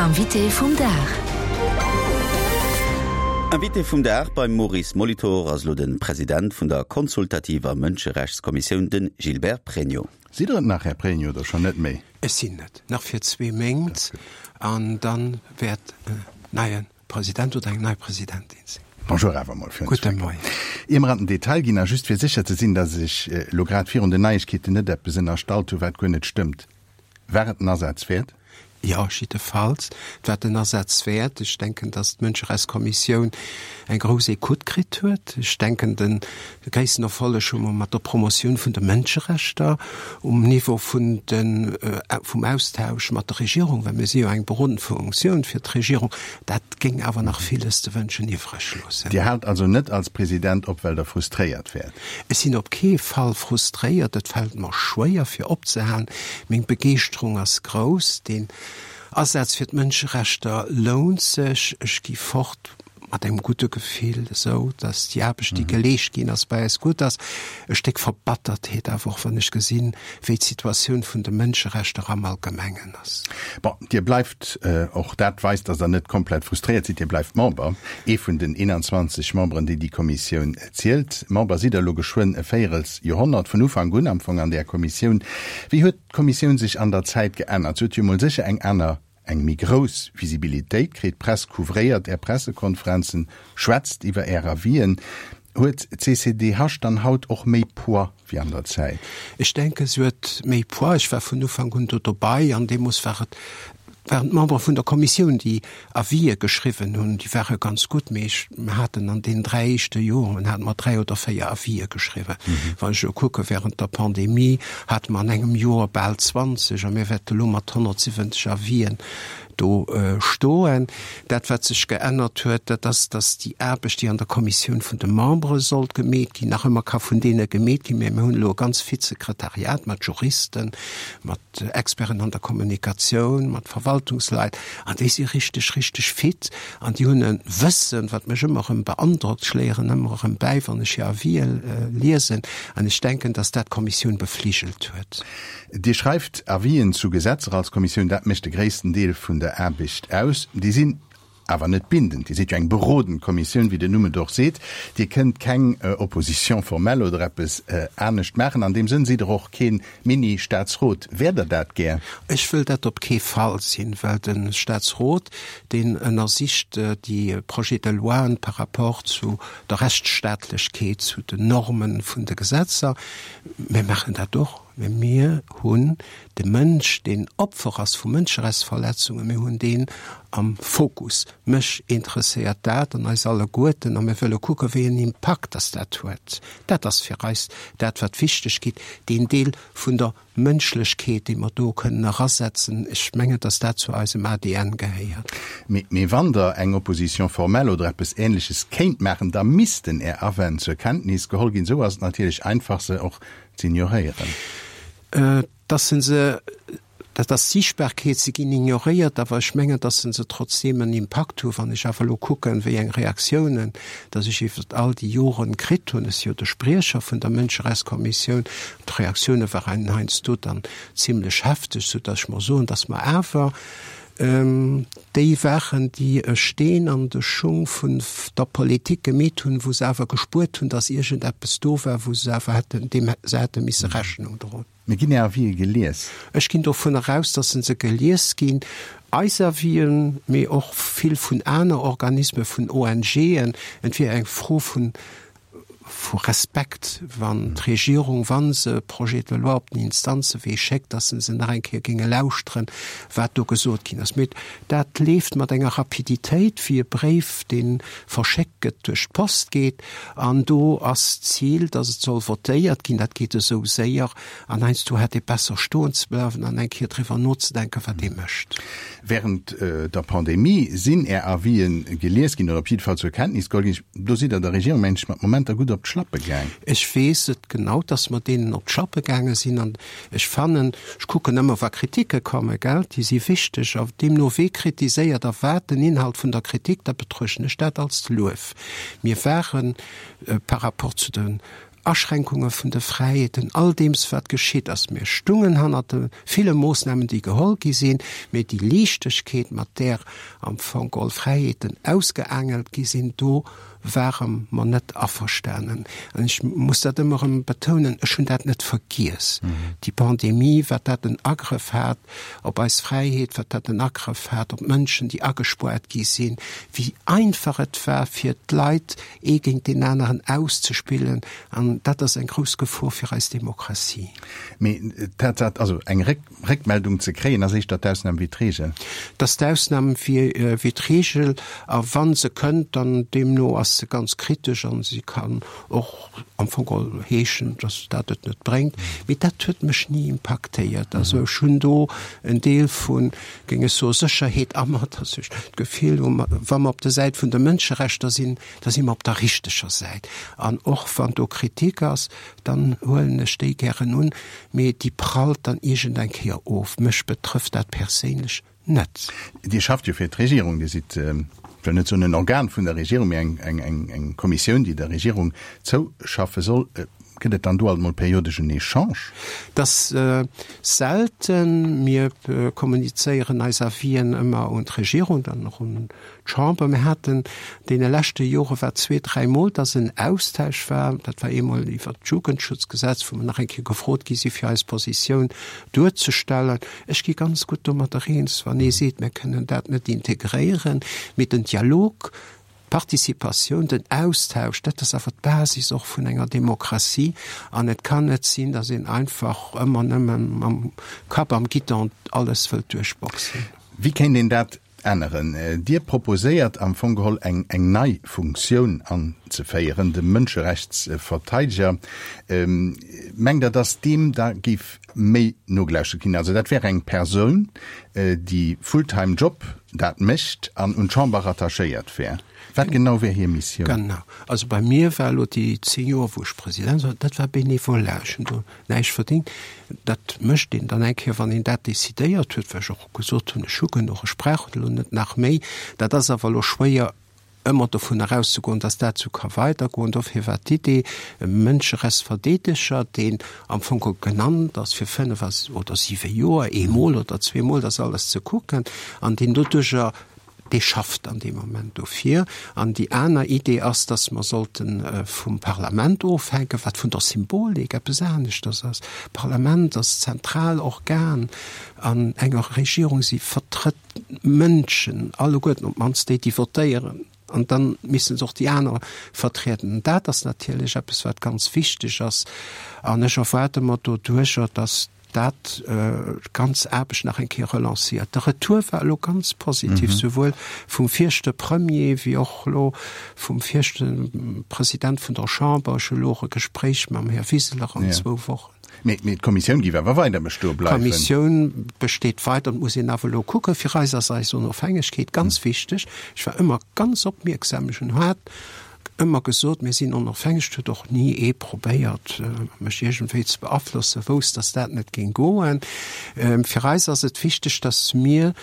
Invité vum Dag. Invité vum Dag beim Maurice Molitor ass elo de President vun der consultativer Mënscherechtskommissioun, de Gilbert Pregno. Sidd Der et nach, Här Pregno, oder schonn net méi? Ech sinn et nach fir zwee Méint an da wäert en neie President oder eng nei Presidentin sinn. Bonjour awer emol fir Gudde Moien. Ier mer an den Detail ginn, a just fir sécher ze sinn, datt ech elo grad virun den Neiegkeeten net eppes ënnerstallt hu wat guer net stëmmt, War et den Asaz wäert? Jo, jiddefalls. Et war den Asaz wäert. Ech denken, datt d'Mënscherechtskommissioun eng grouss Ecoute kritt huet. Ech denken, de gréissten Erfolleg hu mer mat der Promotioun vun de Mënscherechter um Niveau vun de, vum Austausch mat der Regierung, well mir si jo eng berodend Funktioun fir d'Regierung. Dat géing awer nach villes ze wënschen iwwreg loossen. Dir haalt also net als President op, well Der frustréiert wäert? Ech sinn op kee Fall frustréiert, et fält mer schwéier fir opzehalen. Meng Begeeschterung ass grouss, deen Asaz fir d'Mënscherechter lount sech. Ech gi fort mat engem gudde Gefill, esou datt déi Aarbecht déi geleescht ginn ass, bei eis gutt ass. E Stéck Verbattertheet awer och, wann ech gesinn, wéi d'Situatioun vun de Mënscherechter am Allgemengen ass. Bon, Dir bleift, och dat weist, datt Der net komplett frustréiert sidd, Dir bleift Member, ee vun den 21 Memberen, déi déi Kommissioun Zielt. Member sidd Der elo geschwënn e Véierels Joerhonnert, vun Ufank un am Fong an där Kommissioun. Wéi huet d'Kommissioun sech an der Zäit geännert? Se huet jo emol sécher eng aner, eng méi grouss Visibilitéit kritt. D'Press couvréiert Är Pressekonferenzen, schwätzt iwwer Är Avisen. Huet d'CCDH dann haut och méi Poids wéi an der Zäit? Ech denken, se huet méi Poids. Ech war vun Ufank un do dobei an deemools war et waren d'Membere vun der Kommissioun, déi Avisë geschriwwen hunn. Déi ware ganz gutt, mee ech, mir haten an deenen 3 éischte Joren hate mer 3 oder 4 Avisë geschriwwen. Wann ech elo kucke während der Pandemie hate mer an engem Joer bal 20 a mir wäerte elo mat 170 Avisen do stoen. Dat, wat sech geännert huet, dat ass, datt déi Aarbecht, déi an der Kommissioun vun de Membere sollt gemeet ginn, nach ëmmer ka vun deene gemeet ginn, mä mir hunn elo e ganz fit Sekretariat mat Juristen, mat Experten an der Kommunikatioun, mat Verwaltungsleit, an déi si richteg, richteg fit an déi hunn e Wëssen, wat mech ëmmer erëm beandrockt. Ech léieren ëmmer erëm bäi, wann ech hir Avisë liesen, an ech denken, dass dat d'Kommissioun befligelt huet. Dir schreift Avisen zu Gesetzer als Kommissioun, dat mécht de gréissten Deel vun der Aarbecht aus. Déi sinn Awer net bindend. Dir sidd jo eng berodend Kommissioun, wéi den Numm et och seet. Dir kënnt keng Opposition formelle oder eppes anescht maachen. An deem Sënn sidd Der och kee Mini-Staatsrot. Wäert Der dat gär? Ech wëll dat op kee Fall sinn, well de Staatsrot, deen ënnersicht déi Projets de loien par rapport zu der Rechtsstaatlechkeet, zu den Normen vun de Gesetzer. Mir maachen dat och, mä mir hunn De Mënsch, deen Opfer ass vu Mënscherechtsverletzungen, mir hunn deen am Fokus. Mech interesséiert dat an eis alleguerten a mir wëlle kucken, wéi en Impakt dass dat huet. Dat ass fir eis dat, wat wichteg gitt, deen Deel vun der Mënschlechkeet, dee mer do kënnen erasetzen. Ech mengen, dass dat zu eisem ADN gehéiert. Mee wann Der eng Opposition formelle oder eppes Ähnleches kéint maachen, da missten Är Awänn zur Kenntnis geholl ginn. Esou ass et natierlech einfach, se och z'ignoréieren. Dass se se, dat ass d'Siichtbarkeet, se ginn ignoréiert, awer ech mengen, dass se se trotzdeem en Impakt hunn. Wann ech awer elo kucken, wéi eng Reaktiounen dass ech iwwert all déi Joren kritt hunn, ech si jo de Spriecher vun der Mënscherechtskommissioun, d'Reaktioune waren heiansdo dann zimlech hefteg, soudass ech mer soen, dass mer awer déi waren, déi e Steen an de Schung vun der Politik gemeet hunn, wou se awer gespuert hunn, dass iergendeppes do war, wou se awer hätten, deem se hätte misse Rechnung droen. Mee ginn Är Avisë gelies? Ech ginn dovunner aus, dass se gelies ginn, eis Avisen, mee och vill vun aner Organismen, vun ONGen. Et wier eng Fro vun vu Respekt, wann d'Regierung, wa se Projets de loi op den Instanzewee schéckt, dass se se nach eng Kéier géinge lauschteren, wat do gesot ginn ass. Mee dat leeft mat enger Rapiditéit wéi e Bréif, dee verschéckt gëtt, duerch d'Post geet. An do ass d'Zil, dass et soll votéiert ginn. Dat geet esou séier. An heiansdo hätt ee besser stoen ze bleiwen an eng Kéier driwwer nozedenken, wat ee mécht. Während der Pandemie sinn Är Avisen gelies ginn oder op jidde Fall zur Kenntnis geholl ginn. Do sidd Der der Regierung, mengen ech, mat Momenter gutt op d'Schlappe gaang. Ech weess et genau, dass mer deenen op d'Schlappe gaange sinn. An ech fannen, ech kucken ëmmer, wa Kritike kommen, gell, déi si wichteg. A deemno wee kritiséiert a wat den Inhalt vun der Kritik, da betruechten ech dat als Luef. Mir ware par rapport zu den. Aschränkunge vun de Fräiheeten, all deems wat geschitt ass. Mir stungen hannert de ville Moossnamen, déi geholl gi sinn, mee déi Liichtegkeet, mat där am Fong geholl Fräiheeten ausgeaangelt gi sinn, do ware mer net averstanen. An ech muss dat ëmmer erëm betounen, ech hunn dat net vergiess, déi Pandemie, wat dat en Agrëff hat op eis Fräiheet, wat dat en Agrëff hat op d'Mënschen, déi agespoart gi sinn, wéi einfach et war fir d'Leit, ee géint deen aneren auszespillen, an dat ass eng grouss Gefor fir eis Demokratie. Mee d'Tatsaach, also eng Réckmeldung ze kréien, ass éischter d'Ausnam wéi d'Reegel. Dat ass d'Ausnam wéi d'Reegel, a wa se kënnt, dann deemno ass se ganz kritesch a si kann och am Fong geholl heeschen, datt dat et net bréngt. Mee dat huet mech ni impaktéiert. Also ech hunn do en Deel vu géing ech soen, Sécherheet a mer, dass ech d'Gefill hu, wa mer op der Säit vun de Mënscherechter sinn, da si mer op der richteger Säit. An och wann do Kritik ass, dann huelen ech déi gären un, mee déi prallt dann iergend eng Kéier of. Mech betrëfft dat perséinlech net. Dir schafft jo fir d'Regierung. Dir sidd, ech wëll net soen en Organ vun der Regierung, mee eng Kommissioun, déi der Regierung zouschaffe soll. Gëtt et dann do alt mol periodesch en Echange? Et ass selten. Mir kommunizéieren eis Avisen ëmmer un d'Regierung, dann och un d'Chamber. Mir haten deene leschte Jore war zweet, dräimol, dass en Austausch war. Dat war eemol iwwert d'Jugendschutzgesetz, wou mer nach eng Kéier gefrot gi si fir eis Positioun duerzestellen. Ech gi ganz gutt domadder eens, wann ee seet, mir kënnen dat net integréieren, mee den Dialog, D'Participatioun, den Austausch, dat ass awer d'Basis och vun enger Demokratie. An et kann net sinn, datt een einfach ëmmer nëmme mam Kapp am Guidon alles wëllt duerchboxen. Wéi kéint een dat änneren? Dir proposéiert am Fong geholl eng nei Funktioun anzeféieren, de Mënscherechtsverteideger. Mengt Der, datt deem da géif méi nogelauschtert ginn? Also dat wär eng Persoun, déi full-time Job dat mécht an un d'Chamber rattachéiert wär. Wat genau wär hir Missioun? Genau. Also bei mir war elo déi 10 Joer, wou ech President war, dat war Bénévolat. Ech hunn do näischt verdéngt. Dat mécht een dann eng Kéier, wann een dat decidéiert huet, well ech och gesot hunn, ech hu genuch, ech brauch elo net nach méi. Dat ass awer elo schwéier ëmmer dovun erauszegoen, dass dat esou ka weidergoen. Dofir war d'Idee, e Mënscherechtsverdeedeger, deen am Fong genannt ass fir fënnef oder siwe Joer, eemol oder zweemol dat alles ze kucken, an deen doduerjer, dee schafft an deem Moment dofir. An déi aner Idee ass, dass mer sollte vum Parlament ofhänken, wat vun der Symbolik eppes aneschters ass. D'Parlament ass d'zentral Organ an enger Regierung, si vertrëtt Mënschen, alleguerten, op d'mannst déi, déi votéieren, an da misste se och déi aner vertrieden. An dat ass natierlech eppes, wat ganz wichteg ass. An ech erwaarde mer doduercher, datt dat d'ganz Aarbecht nach eng Kéier relanciert. De Retour war elo ganz positiv, souwuel vum viregte Premier wéi och elo vum viregte President vun der Chamber. Ech hu elo och e Gespréich mam Här Wiseler an zwou Wochen. Mee d'Kommissioun géif awer weider bestoe bleiwen. D'Kommissioun besteet weider. Et muss een awer elo kucken. Fir eis ass eis Onofhängegkeet ganz wichteg. Ech war ëmmer ganz opmierksam. Ech hunn haart ëmmer gesot, mir sinn onofhängeg. Et huet och ni ee probéiert, mech iergendwéi ze beaflossen, wousst, datt dat net géing goen. Fir eis ass et wichteg, datt mir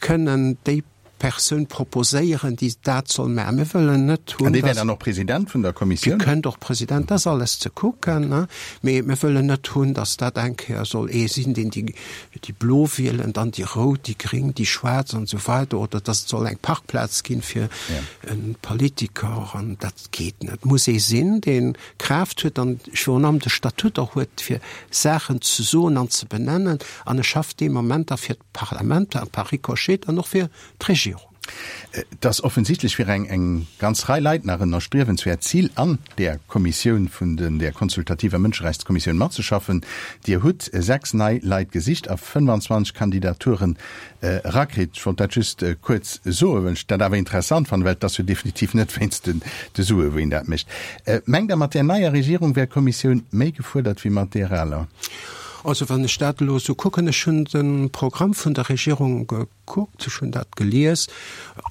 kënnen déi Persoun proposéieren, déi dat soll maachen. Mir wëllen net hunn, An dee wär dann och President vun der Kommissioun? Dee kënnt och President, dat ass alles ze kucken, ne? Mee mir wëllen net hunn, datt dat eng Kéier soll ee sinn, deen déi, déi Blo wielen, dann déi Rout, déi Gréng, déi Schwaarz an esou weider, oder datt et soll eng Parkplaz ginn fir e Politiker, an dat geet net. Et muss ee sinn, dee Kraaft huet an virun allem de Statut och huet, fir Saachen ze soen an ze benennen, an e schafft dee Moment da fir Parlament a par ricochet dann och fir d'Regierung. Et ass offensichtlech fir eng eng ganz Rei Leit nach en erstriewenswäert Zil, an där Kommissioun vun den, där konsultativer Mënscherechtskommissioun matzeschaffen. Dir hutt 6 nei Leit gesicht a 25 Kandidaturen erakritt. Ech wollt dat just kuerz soen, well ech dat awer interessant fannen, well et ass jo definitiv net wéinst den de Sue wou een dat mécht. Mengt Der, mat där neier Regierung wär d'Kommissioun méi gefuerdert wéi mat där aler? Also wann ech dat elo esou kucken, ech hunn de Programm vun der Regierung gekuckt, ech hunn dat gelies,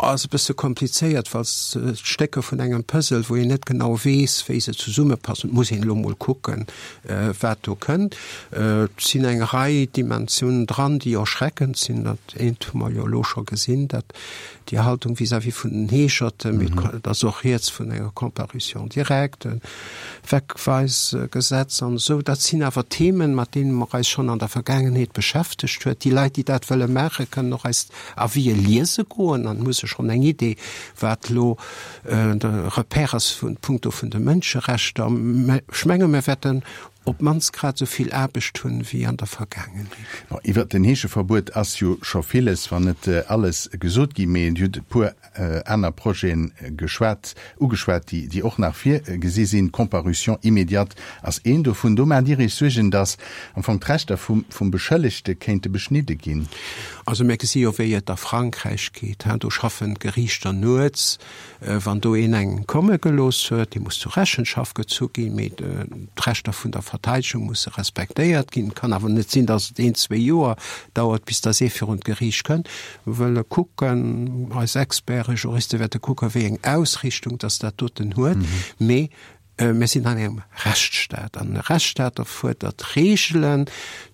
ass e bësse komplizéiert, well se d'Stécker vun engem Puzzle, wou een net genau weess, wéi se zesummepassen. Et muss een elo mol kucken, wat do kënnt. Et sinn eng Rei Dimensiounen dran, déi erschreckend sinn. Dat eent hu mer jo elo scho gesinn, dat déi Haltung vis-à-vis vun den Heescherten, mee et ass och rieds vun enger Comparution directe, Wegweisgesetz an esou. Dat sinn awer Themen, mat deene mer eis schonn an der Vergaangenheet beschäftegt huet. Déi Leit, déi dat wëlle maachen, kënnen och eis Avisë liese goen an hu se schonn eng Idee, wat elo de Repère ass vun punkto vun de Mënscherechter. Mä ech menge mir wäerten op d'mannst grad esou vill Aarbecht hunn, wéi an der Vergaangenheet. Bon, iwwert den Heescheverbuet ass jo scho villes, wann net alles gesot ginn, mee Dir hutt e puer aner Projeten geschwat, ugeschwat, déi, déi och nach virgesi sinn. D'Comparution immédiate ass een dovun. Do maacht Dir Iech Suergen, datt am Fong d'Rechter vum, vum Beschëllegte kéinte beschnidde ginn. Also mir gesi jo, wéi et a Frankräich geet. Do schaffen d'Geriichter nuets. Wann do een eng komme gelooss huet, dee muss zur Rechenschaft gezu ginn, mee d'Rechter vun der Verteidegung musse respektéiert ginn. Et kann awer net sinn, datt et een, zwee Joer dauert, bis datt ee virun d'Geriicht kënnt. Mir wëlle kucken, eis Experten, Juriste wäerte kucken, wéi eng Ausrichtung datt dat doten huet. Mee mir sinn an engem Rechtsstaat an e Rechtsstaat erfuerdert Reegelen.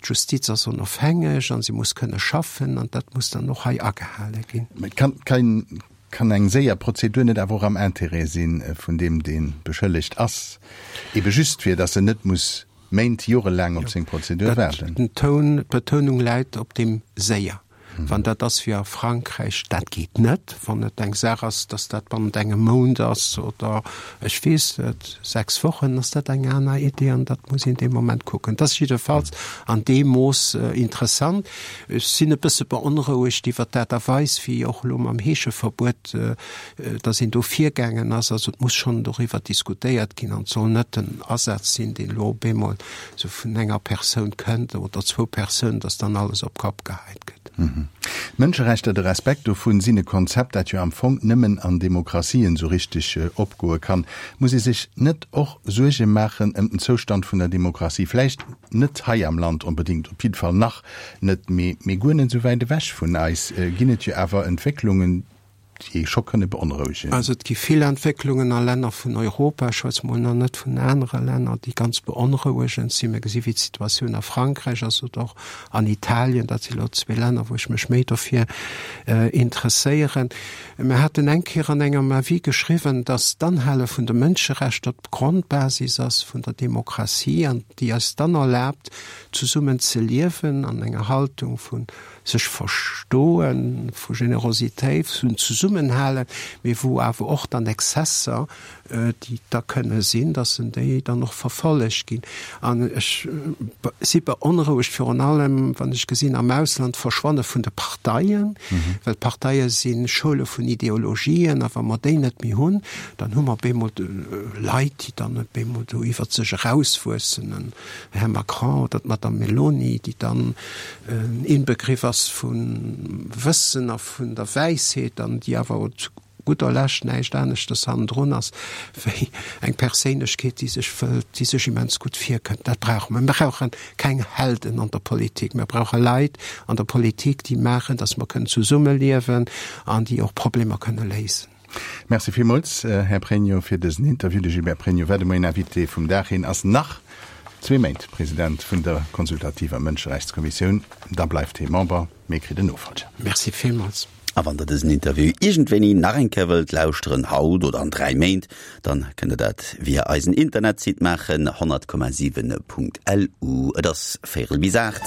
D'Justiz ass onofhängeg a si muss kënne schaffen an dat muss dann och hei agehale ginn. Mee kann, kann eng séier Prozedur net awer och am Intérêt si vun deem, dee beschëllegt ass, ebe just fir datt en net muss Méint, jorelaang op seng Prozedur waarden? Den Toun, d'Betounung läit op deem séier. Wann dat ass wéi a Frankräich, dat geet net. Wann et eng Saach ass, datt dat bannent engem Mount ass oder ech weess net, sechs Wochen, ass dat eng aner Idee an dat muss een dee Moment kucken. Dat ass jiddefalls an deem Mooss interessant. Ech sinn e bësse beonrouegt iwwert d'Aart a Weis, wéi och elo mam Heescheverbuet, datt een do virgaangen ass. Also et muss schonn doriwwer diskutéiert ginn an et soll net en Asaz sinn, deen elo op eemol esou vun enger Persoun kënnt oder zwou Persounen, datt dann alles op d'Kopp geheit gëtt. D'Mënscherechter, de Respekt dovun, sinn e Konzept, dat jo am Fong nëmmen an Demokratien esou richteg opgoe kann. Muss ee sech net och Suerge maachen ëm den Zoustand vun der Demokratie? Vläicht net hei am Land onbedéngt, op jidde Fall nach net, mee guer net esou wäit ewech vun eis ginn et jo awer Entwécklungen, déi ee scho kënne beonrouegen. Also et gi vill Entwécklungen a Länner vun Europa, ech schwätze mol nach net vun anere Länner, déi ganz beonrouegend sinn. Mir gesi wéi d'Situatioun a Frankräich ass oder och an Italien. Dat si lo zwee Länner, wou ech mech méi dofir interesséieren. Mir haten eng Kéier an engem Avis geschriwwen, datt d'Anhale vun de Mënscherechter d'Grondbasis ass vun der Demokratie an déi eis dann erlaabt, zesummen ze liewen an enger Haltung vu sech verstoen, vu Generositéit, vun Zesummenhalen, mee wou awer och dann Exzesser, déi da kënne sinn, dass en déi dann och verfollegt ginn. An ech si beonrouegt virun allem, wann ech gesinn am Ausland d'Verschwanne vun de Parteien, well d'Parteie si Schoule vun Ideologien, a wa mer déi net méi hunn, dann hu mer op eemol Leit, déi dann op eemol do iwwert sech erauswuessen, en Här Macron oder d'Madame Meloni, déi dann en Inbegriff ass vum Wëssen a vun der Wäisheet an déi awer zu gudder Lescht näischt aneschtes hannendrun ass wéi eng Perséinlechkeet, déi sech wëllt, déi sech immens gutt virkënnt. Dat brauche mer. Mir brauche keng Helden an der Politik. Mir brauche Leit an der Politik, déi maachen, datt mer kënnen zesummeliewen an déi och Problemer kënne léisen. Merci villmools, Här Pregno, fir dësen Interview. De Gilbert Pregno war de Moien Invité vum Dag. Hien ass nach zwee Méint President vun der consultativer Mënscherechtskommissioun. Da bleift hie Member, mee kritt en Nofollger. Merci villmools. A wann der dësen Interview iergendwéini nach eng Kéier wëllt lauschteren, haut oder an 3 Méint, dann kënnt der dat via eisen Internetsite maachen, 100,7.lu. Et ass véierel bis 8.